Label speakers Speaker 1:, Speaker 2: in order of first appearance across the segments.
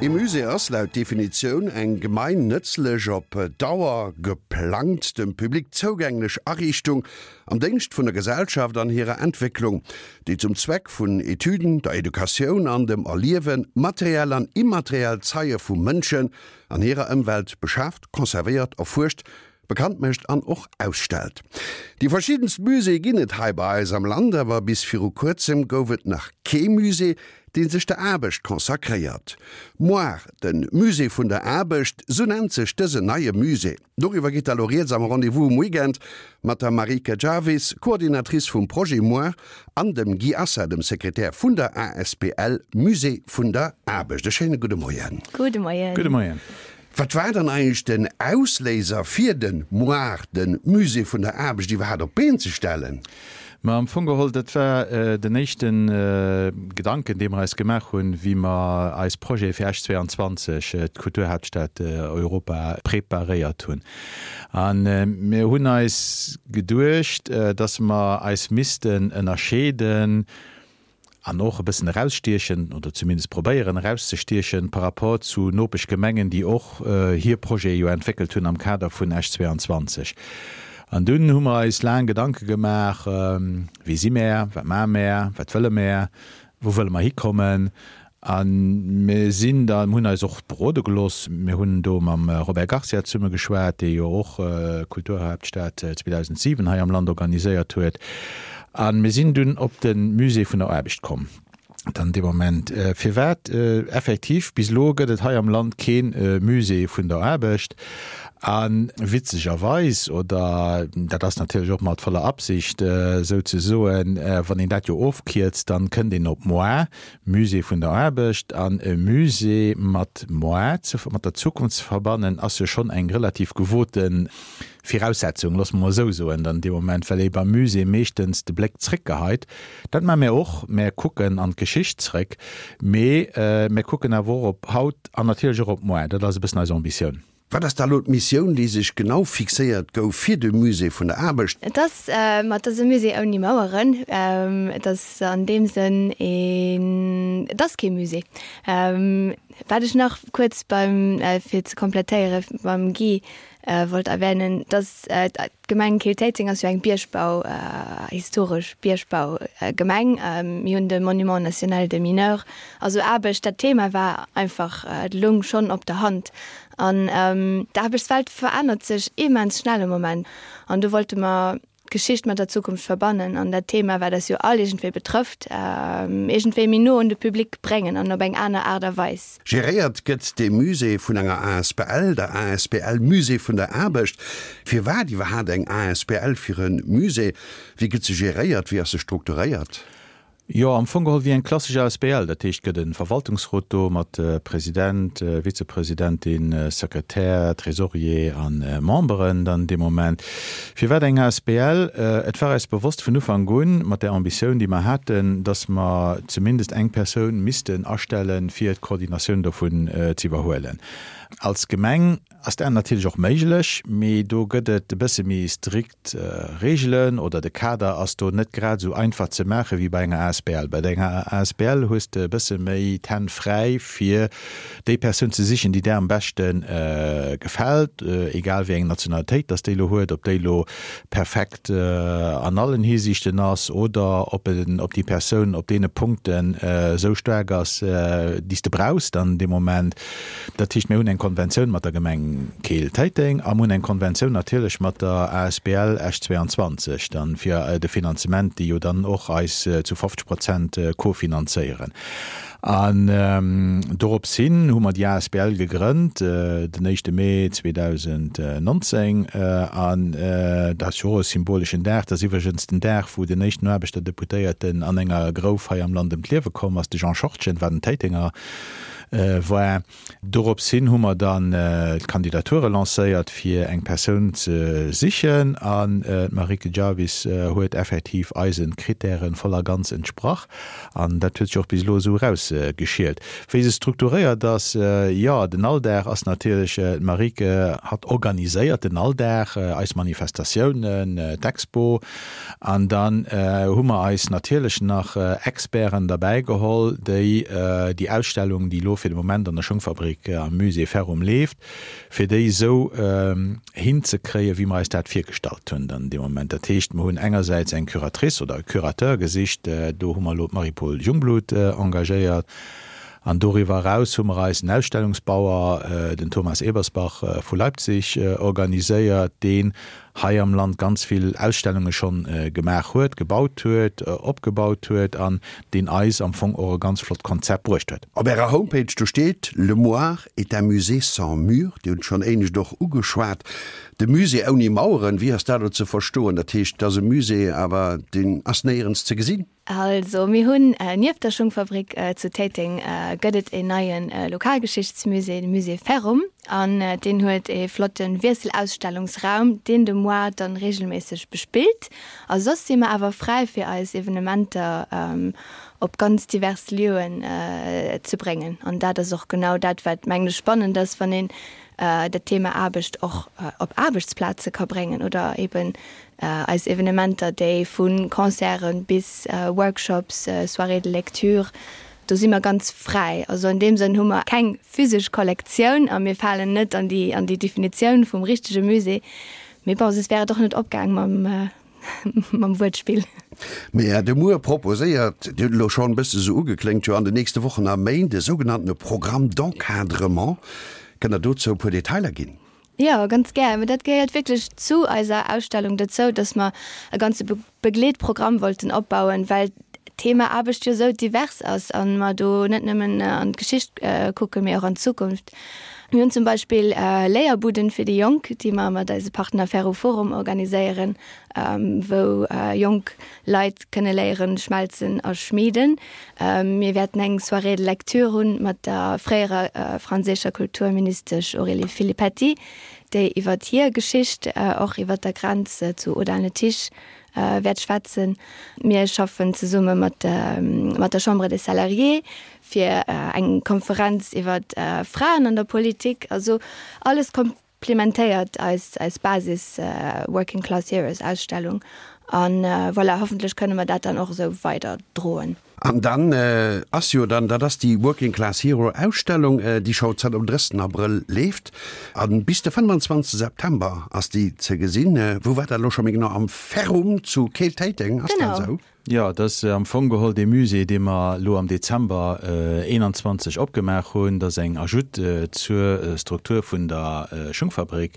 Speaker 1: Ee Musée ass, laut Definitioun, eng gemeinnëtzlech, op Dauer geplangt, dem Public zougänglech Ariichtung am Déngscht vun der Gesellschaft an hirer Entwécklung, déi zum Zweck vun Etüden, der Educatioun an dem Erliewe materiell an immateriell Zeie vu Mënschen an hirer Ëmwelt beschaaft, conservéiert, erfuerscht, bekannt mécht an och ausstellt. Déi verschiddenst Muséeë ginn et hei bei eis am Land, awer bis viru kuerzem gouf et nach kee Musée, dee sech der Aarbecht consacréiert. Moar, de Musée vun der Aarbecht, sou nennt sech dësen neie Musée. Doriwwer geet da lo rieds am Rendez-vous um Weekend mat der Marieke Jarvis, Coordinatrice vum Projet Moar, an dem Guy Assa, dem Sekretär vun der asbl Musée vun der Aarbecht. E schéine gudde Moien.
Speaker 2: Gudde Moien.
Speaker 3: Gudde Moien.
Speaker 1: Wat war dann eigentlech den Ausléiser fir den MOAR, den Musée vun der Aarbecht, iwwerhaapt op d'Been ze stellen?
Speaker 3: Ma am Fong geholl, dat war den éischte Gedanken, dee mer eis gemaach hunn, wéi mer eis Projete fir Esch 22, d'Kulturhaaptstad Europa, preparéiert hunn. A mir hunn eis geduecht, dass mer eis missten ënnerscheeden, an och e bëssen erausstiechen, oder zumindest probéieren erauszestiechen, par rapport zu Nopeschgemengen, déi och hir Projete jo entwéckelt hunn am Kader vun Esch 22. An dunn hu mer eis laang Gedanke gemaach, Wie si mär, wat maache mär, wat wëlle mär, wou wëlle mer hikommen? A mir sinn da, mir hunn eis och berode gelooss, mir hunn do mam Robert Garcia zesumme geschwat, dee jo och d'Kulturhaaptstad 2007 hei am Land organiséiert huet. A mir sinn dunn op de Musée vun der Aarbecht komm dann dee Moment. Firwat? Effektiv, bis elo gëtt et hei am Land kee Musée vun der Aarbecht. A witzegerweis, oder dat ass natierlech och mat voller Absicht souzesoen, wann een dat jo ofkierzt, dann kënnt een op moi, Musée vun der Aarbecht an e Musée mat moi, mat der Zukunft ze verbannen, ass jo schonn eng relativ gewote Viraussetzung, loosse mer mol esou soen, dann dee Moment, well ee beim Musée meeschtens de Bléck zréckgeheit. Dat maache mär och, mär kucken an d'Geschicht zréck, mee mär kucken awer och op haut an natierlech och op moar. Dat ass e bëssen eis Ambitioun.
Speaker 1: Wat ass da elo d'Missioun, déi sech genau fixéiert gouf fir de Musée vun der Aarbecht?
Speaker 2: Et ass, ma et ass e Musée ouni Maueren. Et ass an deem Sënn een, et ass kee Musée. Wat ech nach kuerz beim, fir ze komplettéiere beim Guy wollt erwänen, dass d'Gemeng Keel-Téiteng ass jo eng Biergbau, historesch Biergbaugemeng. Mir hunn de Monument national des mineurs, also Aarbecht, dat Thema war einfach, et loung schonn op der Hand. An d'Aarbechtswelt verännert sech immens schnell am Moment. An do wollte mer d'Geschicht mat der Zukunft verbannen an dat Thema, wat eis jo all iergendwéi betrëfft, iergendwéi méi no un de Public bréngen an op eng aner Aart a Weis.
Speaker 1: Geréiert gëtt dee Musée vun enger asbl, der asbl Musée vun der Aarbecht. Firwat iwwerhaapt eng asbl fir e Musée? Wéi gëtt se geréiert? Wéi ass se strukturéiert?
Speaker 3: Jo, am Fong geholl wéi eng klassesch asbl. Dat heescht, et gëtt e Verwaltungsrot do mat President, Vizepresidentin, Sekretär, Tresorier a Memberen dann dee Moment. Firwat eng asbl? Et war eis bewosst vun Ufank un, mat där Ambitioun, déi mer haten, datt mer zumindest eng Persoun missten astellen, fir d'Koordinatioun dovun ze iwwerhuelen. Als Gemeng ass dat natierlech och méiglech, mee do gëtt et e bësse méi strikt D'Reegelen oder de Kader ass do net grad esou einfach ze maache wéi bei enger asbl. Bei enger asbl hues de e bësse méi d'Hänn fräi fir déi Persoun ze sichen, déi där am beschte gefält, egal wéi eng Nationalitéit dass déi elo huet, ob déi elo perfekt an allen Hisiichten ass oder ob ob déi Persoun op deene Punkten esou staark ass, déi s de brauchs dann dee Moment. Dat heescht, mir hunn eng Konventioun mat der Gemeng Keel-Téiteng a mir hunn eng Konventioun natierlech mat der asbl Esch 22 dann fir de Finanzement, déi jo dann och eis zu 50 Prozent kofinanzéieren. An dorops hin hu mer déi asbl gegrënnt den éischte Mee 2019. An dat ass jo och e symboleschen Dag. Dat ass iwwregens den Dag, wou den éischten Aarbechterdeputéierten an enger Grouf hei am Land ëm d'Liewe komm ass, de Jean Schortgen war den Téitenger. war. Dorops hin hu mer dann d'Kandidature lancéiert, fir eng Persoun ze sichen, an d'Marieke Jarvis huet effektiv eise Krittäre voll a ganz entsprach. An dat huet sech och bis elo esou erausgeschielt. Wéi se strukturéiert ass, jo, den Alldag ass natierlech, d'Marieke hatt organiséiert den Alldag, eis Manifestatiounen, d'Expo, An dann hu mer eis natierlech nach Experten derbäi geholl, déi déi Ausstellung, déi elo. elo fir de Moment an der Schungfabrik am Musée Ferrum leeft, fir déi esou hinzekréien, wéi mer eis dat virgestallt hunn dann dee Moment. Dat heescht, mer hunn engersäits eng Curatrice oder e Curateur gesicht, do hu mer elo d'Marie-Paule Jungblut engagéiert, an doriwwer eraus hu mer eis en Ausstellungsbauer, den Thomas Ebersbach vu Leipzig, organiséiert, deen hei am Land ganz vill Ausstellunge schonn gemaach huet, gebaut huet, opgebaut huet an deen eis am Fong och e ganz flott Konzept bruecht huet.
Speaker 1: Op Ärer Homepage do steet, Le Moar est un musée sans murs. Dir hutt et schonn éinescht och ugeschwat, de Musée ouni Maueren, wéi ass dat elo ze verstoen? Dat heescht, et ass e Musée, awer deen ass néierens ze gesinn?
Speaker 2: Also mir hunn nieft der Schungfabrik zu Téiteng gëtt et een neie Lokalgeschichtsmusée, de Musée Ferrum, an deen huet ee flotte Wiesselausstellungsraum, deen de Moar dann reegelméisseg bespillt. A soss si mer awer fräi fir eis Evenementer op ganz divers Lieuen ze bréngen. An dat ass och genau dat, wat mengen ech spannend ass, wann een dat Thema Aarbecht och op Aarbechtsplaze ka bréngen oder eben Eis Evenementer, déi vu Concerten bis Workshops, Soirées de lecture, do si mer ganz fräi. Also an deem Sënn hu mer keng physesch Kollektioun a mir falen net an déi an déi Definitioun vum richtege Musée. Mee bon, soss wär et och net opgaang mam mam Wuertspill.
Speaker 1: Mä de Muer proposéiert, Dir hutt elo schonn e bësse sou ugekléngt, jo an den nächste Wochen a Méint e sougenanntene Programme d'encadrement. Kënnt Der dozou e puer Detailer ginn?
Speaker 2: Jo, ganz gär. Mä dat gehéiert wierklech zu eiser Ausstellung dozou, dass mer e ganze Begleetprogramm wollten opbauen, well d'Thema Aarbecht jo esou divers ass a mer do net nëmmen an d'Geschicht kucken, mee och an d'Zukunft. Mir hunn zum Beispill Léierbuden fir déi Jonk, déi mer mat eise Partner Ferroforum organiséieren, wou jonk Leit kënne léieren schmelzen a schmieden. Mir wäerten eng Soirée de lecture hunn mat der fréierer franséischer Kulturministesch Aurélie Filippetti, déi iwwer hir Geschicht och iwwer der Grenz zu Audun-le-Tiche wäert schwätzen. Mir schaffen zesumme mat mat der Chambre des Salariés fir eng Konferenz iwwer Fraen an der Politik. Also alles Plimentéiert eis eis Basis Working Class Heroes Ausstellung an voilà, hoffentlech kënne mer dat dann och esou weider droen.
Speaker 1: An dann ass jo dann, dat ass déi Working Class Hero Ausstellung, déi scho zanter dem 30 Abrëll leeft a bis de 25 September ass déi ze gesinn. Wou war dat elo scho méi genau? Am Ferrum zu Keel-Téiteng, ass dat esou?
Speaker 3: Jo, et ass am Fong geholl dee Musée, dee mer elo am Dezember 21 opgemaach hunn. Dat ass eng Ajoute zur Struktur vun der Schungfabrik.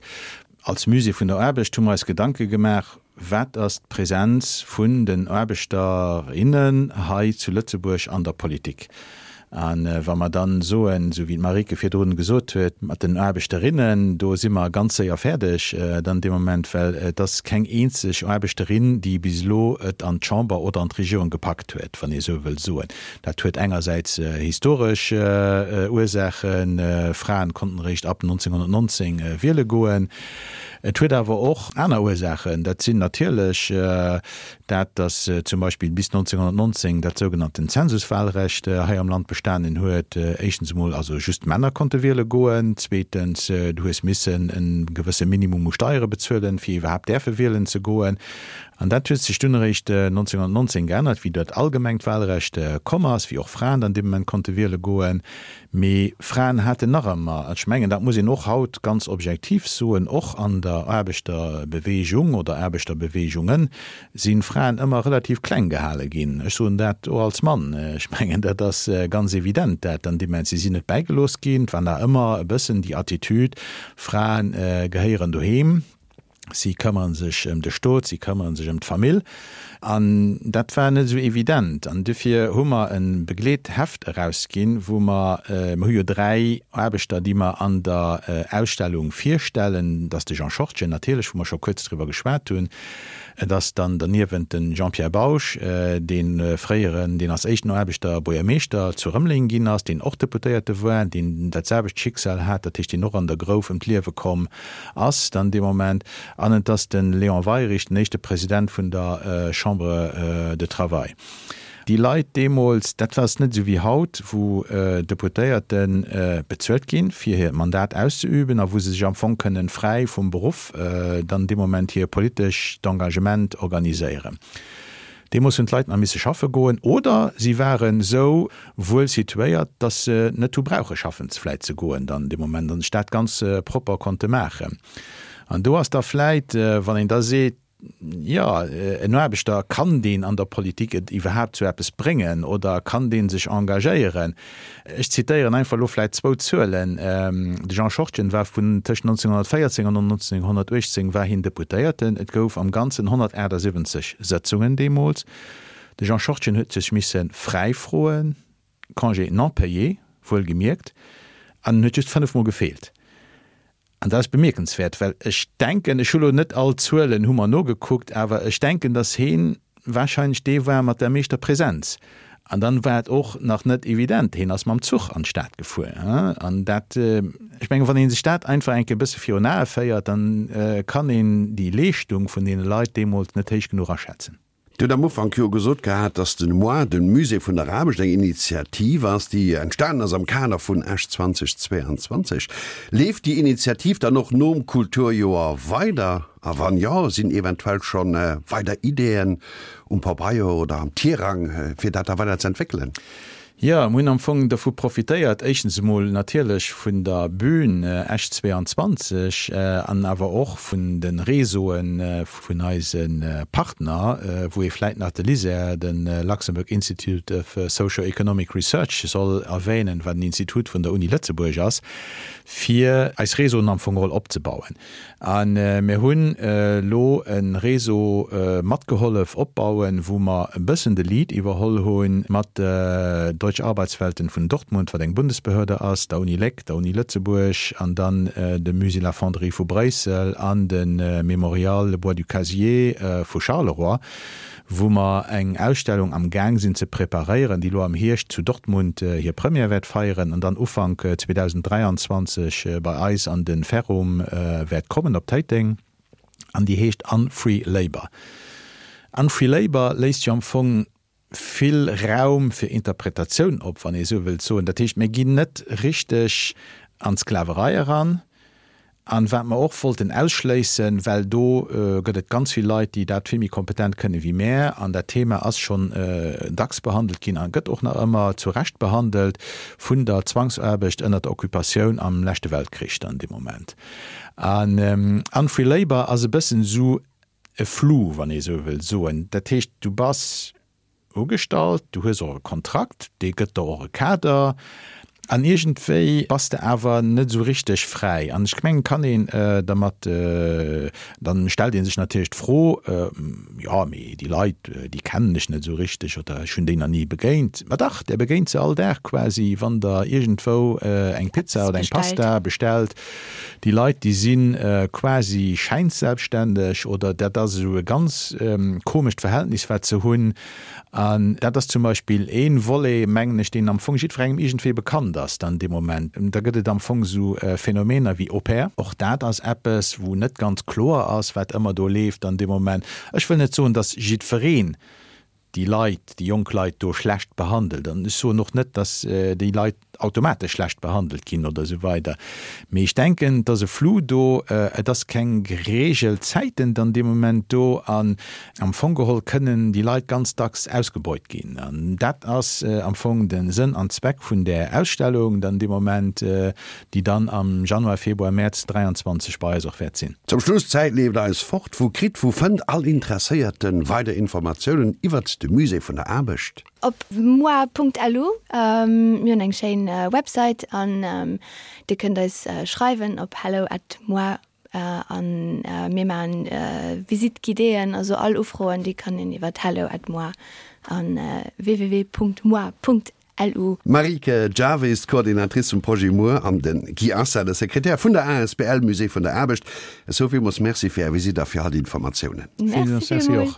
Speaker 3: Als Musée vun der Aarbecht hu mer eis Gedanke gemaach, Wat ass d'Präsenz vun den Aarbechter, innen hei zu Lëtzebuerg an der Politik? A wa mer dann soen, esou wéi d'Marieke virdrun gesot huet, mat den Aarbechterinnen, do si mer ganz séier fäerdeg dann dee Moment, well et ass keng eenzeg Aarbechterin, déi bis elo et an d'Chamber oder an d'Regierung gepackt huet, wann ee esou wëll soen. Dat huet engersäits historesch Ursaachen, Fraen konnten eréischt ab 1919 wiele goen. Et huet awer och aner Ursaachen, dat sinn natierlech Dat, datt zum Beispill bis 1919 dat sougenannten Zensuswahlrecht hei am Land bestanen huet, éischtens emol also just d'Männer konnte wiele goen, zweetens du hues missen e gewësse Minimum u Steiere bezuelen, fir iwwerhaapt däerfe wielen ze goen. An dat huet sech dunn eréischt 1919 geännert, wéi dat allgemengt Wahlrecht komm ass, wéi och Fraen dann dee Moment konnte wiele goen. Mee Fraen haten nach ëmmer, ech mengen, dat muss een och haut ganz objektiv soen, och an der Aarbechterbewegung oder Aarbechterbeweegungen si Fraen ëmmer relativ kleng gehale ginn. Ech soen dat och als Mann. Ech mengen, dat ass ganz evident, dat an deem Moment. Si sinn net bäigelooss ginn. Et war nach ëmmer e bëssen déi Attitüd, Frae gehéieren doheem. Si këmmere sech ëm de Stot, si këmmere sech ëm d'Famill. An dat war net esou evident. An dofir hu mer e Begleetheft erausginn, wou mer, mer hu jo 3 Aarbechter, déi mer an der Ausstellung virstellen, dat ass de Jean Schortgen natierlech, wou mer scho kuerz driwwer geschwat hunn, et ass dann derniewent de Jean-Pierre Bausch, dee fréieren, deen als éischten Aarbechter Buergermeeschter zu Rëmeleng ginn ass, deen och Deputéierte war, deen dat selwecht Schicksal hat, dat heescht, deen och an der Grouf ëm d'Liewe komm ass dann dee Moment, an et ass de Léon Weirich, den éischte President vun der Chambre de Travail. Déi Leit deemools, dat war net esou wéi haut, wou Deputéierte bezuelt ginn, fir hiert Mandat auszeüben a wou se sech am Fong kënnen fräi vum Beruff dann dee Moment hir politescht Engagement organiséieren. Deemools hunn d'Leit nach misse schaffe goen oder si waren esou wuel situéiert, dass se net hu brauche schaffen vläit ze goen dann dee Moment an sech dat ganz propper konnte maachen. An do ass da vläit, wann een da seet, jo, en Aarbechter, kann deen an der Politik et iwwerhaapt zu eppes bréngen oder kann dee sech engagéieren? Ech zitéieren einfach elo vläit zwou Zuelen, De Jean Schortgen war vun tëscht 1914 an 1918 war hien Deputéierten. Et gouf am Ganzen 178 Sëtzungen deemools. De Jean Schortgen huet sech misse fräi froen, Congé non payé, wuelgemierkt, an en huet just fënnefmol gefeelt. An dat ass bemierkenswäert, well ech denken, ech hu lo net all d'Zuelen hu mer nogekuckt, awer ech denken, datt heen wahrscheinlech dee war mat der meeschter Präsenz. An dann war et och nach net evident, heen ass mam Zuch an d'Stad gefuer. An dat, ech mengen, wann ee sech dat einfach eng Kéier e bësse virun Ae féiert, dann kann een déi Leeschtung vun deene Leit deemools net héich genuch aschätzen.
Speaker 1: Dir hutt am Ufank jo gesot gehat, dass den Mois, den Musée vun der Aarbecht, eng Initiativ ass, déi entstanen ass am Kader vun Esch 2022. Leeft déi Initiativ dann och nom Kulturjoer weider? A wann jo, sinn eventuell scho weider Ideeën um Pabeier oder am Tirang, fir dat da weider ze entwéckelen?
Speaker 3: Jo, mir hunn am Fong dovu profitéiert, éischtens emol natierlech vun der Bühn Esch 22 an awer och vun de Réseaue vun eise Partner, wou ee vläit nach de LISER, de Luxembourg Institute of Socio-Economic Research soll erwähnen, wat en Institut vun der Uni Lëtzebuerg ass, fir eis Réseauen am Fong geholl opzebauen. A mir hunn elo e Réseau matgehollef opbauen, wou mer e bëssen de Lead iwwerholl hu mat Deutsche Arbeitswelten vun Dortmund, wat eng Bundesbehörde ass, der Uni Léck, der Uni Lëtzebuerg an dann dem Musée La Fonderie vu Bréissel an de Mémorial Bois du Cazier vu Charleroi. wou mer eng Ausstellung am Gaang sinn ze preparéieren, déi elo am Hierscht zu Dortmund hir Première wäert feieren an dann Ufank 2023 bei eis an de Ferrum wäert kommen op Téiteng, an déi heescht Unfree Labour. Unfree Labour léisst jo am Fong vill Raum fir Interpretatioun op, wann ee esou wëllt soen. Dat heescht, mir ginn net richteg an d'Sklaverei eran, An wat mer och wollten ausschléissen, well do gëtt et ganz vill Leit, déi dat vill méi kompetent kënne wéi mär, an dat Thema ass schonn dacks behandelt ginn a gëtt och nach ëmmer zu Recht behandelt, vun der Zwangsaarbecht ënnert der Occupatioun am leschte Weltkrich dann dee Moment. An Unfree Labour ass e bëssen esou e Flou, wann ee esou wëll soen. Dat heescht, du bass Ugestallt, du hues och e Kontrakt, dee gëtt der och e Kader an iergendwéi bass de awer net esou richteg fräi. An ech mengen, kann een dermat, dann stellt ee sech natierlech d'Fro, jo mee déi Leit, déi kennen ech net esou richteg oder ech hunn déi nach ni begéint. Ma dach, där begéint se all Dag quasi, wann der iergendwou eng Pizza oder eng Pasta bestellt. Déi Leit, déi si quasi schäinselbstständeg oder dat ass esou e ganz komescht Verhältnis, wat se hunn. An dat ass zum Beispill ee Volet, mengen ech, deen am Fong jiddwerengem iergendwéi bekannt ass dann dee Moment. Da gëtt et am Fong esou Phänomener wéi Au-pair. Och dat ass eppes, wou net ganz kloer ass, wat ëmmer do leeft dann dee Moment. Ech wëll net soen, datt jiddwereen déi Leit, déi jonk Leit do schlecht behandelt. An ech soen och net, datt déi Leit automatesch schlecht behandelt ginn oder esou weider. Mee ech denken, et ass e Flou do, et ass keng gereegelt Zäiten dann dee Moment do an am Fong geholl kënnen déi Leit ganz dacks ausgebeut ginn. An dat ass am Fong de Sënn an Zweck vun där Ausstellung dann dee Moment, déi dann am Januar, Februar, Mäerz 23 bei eis och wäert sinn.
Speaker 1: Zum Schluss, D'Zäit leeft eis fort. Wou kritt, wou fënnt all Interesséierte weider Informatiounen iwwert de Musée vun der Aarbecht?
Speaker 2: Op moi.lu. Mir hunn eng schéin Website an Dir kënnt eis schreiwen op hello at moi an mir maachen Visite guidéeën, also all Ufroen déi kann een iwwert hello at moi an www.moi.lu. LU.
Speaker 1: D'Marieke Jarvis, d'Coordinatrice vum Projet Muer, an de Guy Assa, de Sekretär vun der asbl Musée vun der Aarbecht. Esou villmools Merci fir Är Visitt a fir all déi Informatiounen.
Speaker 2: Merci villmools.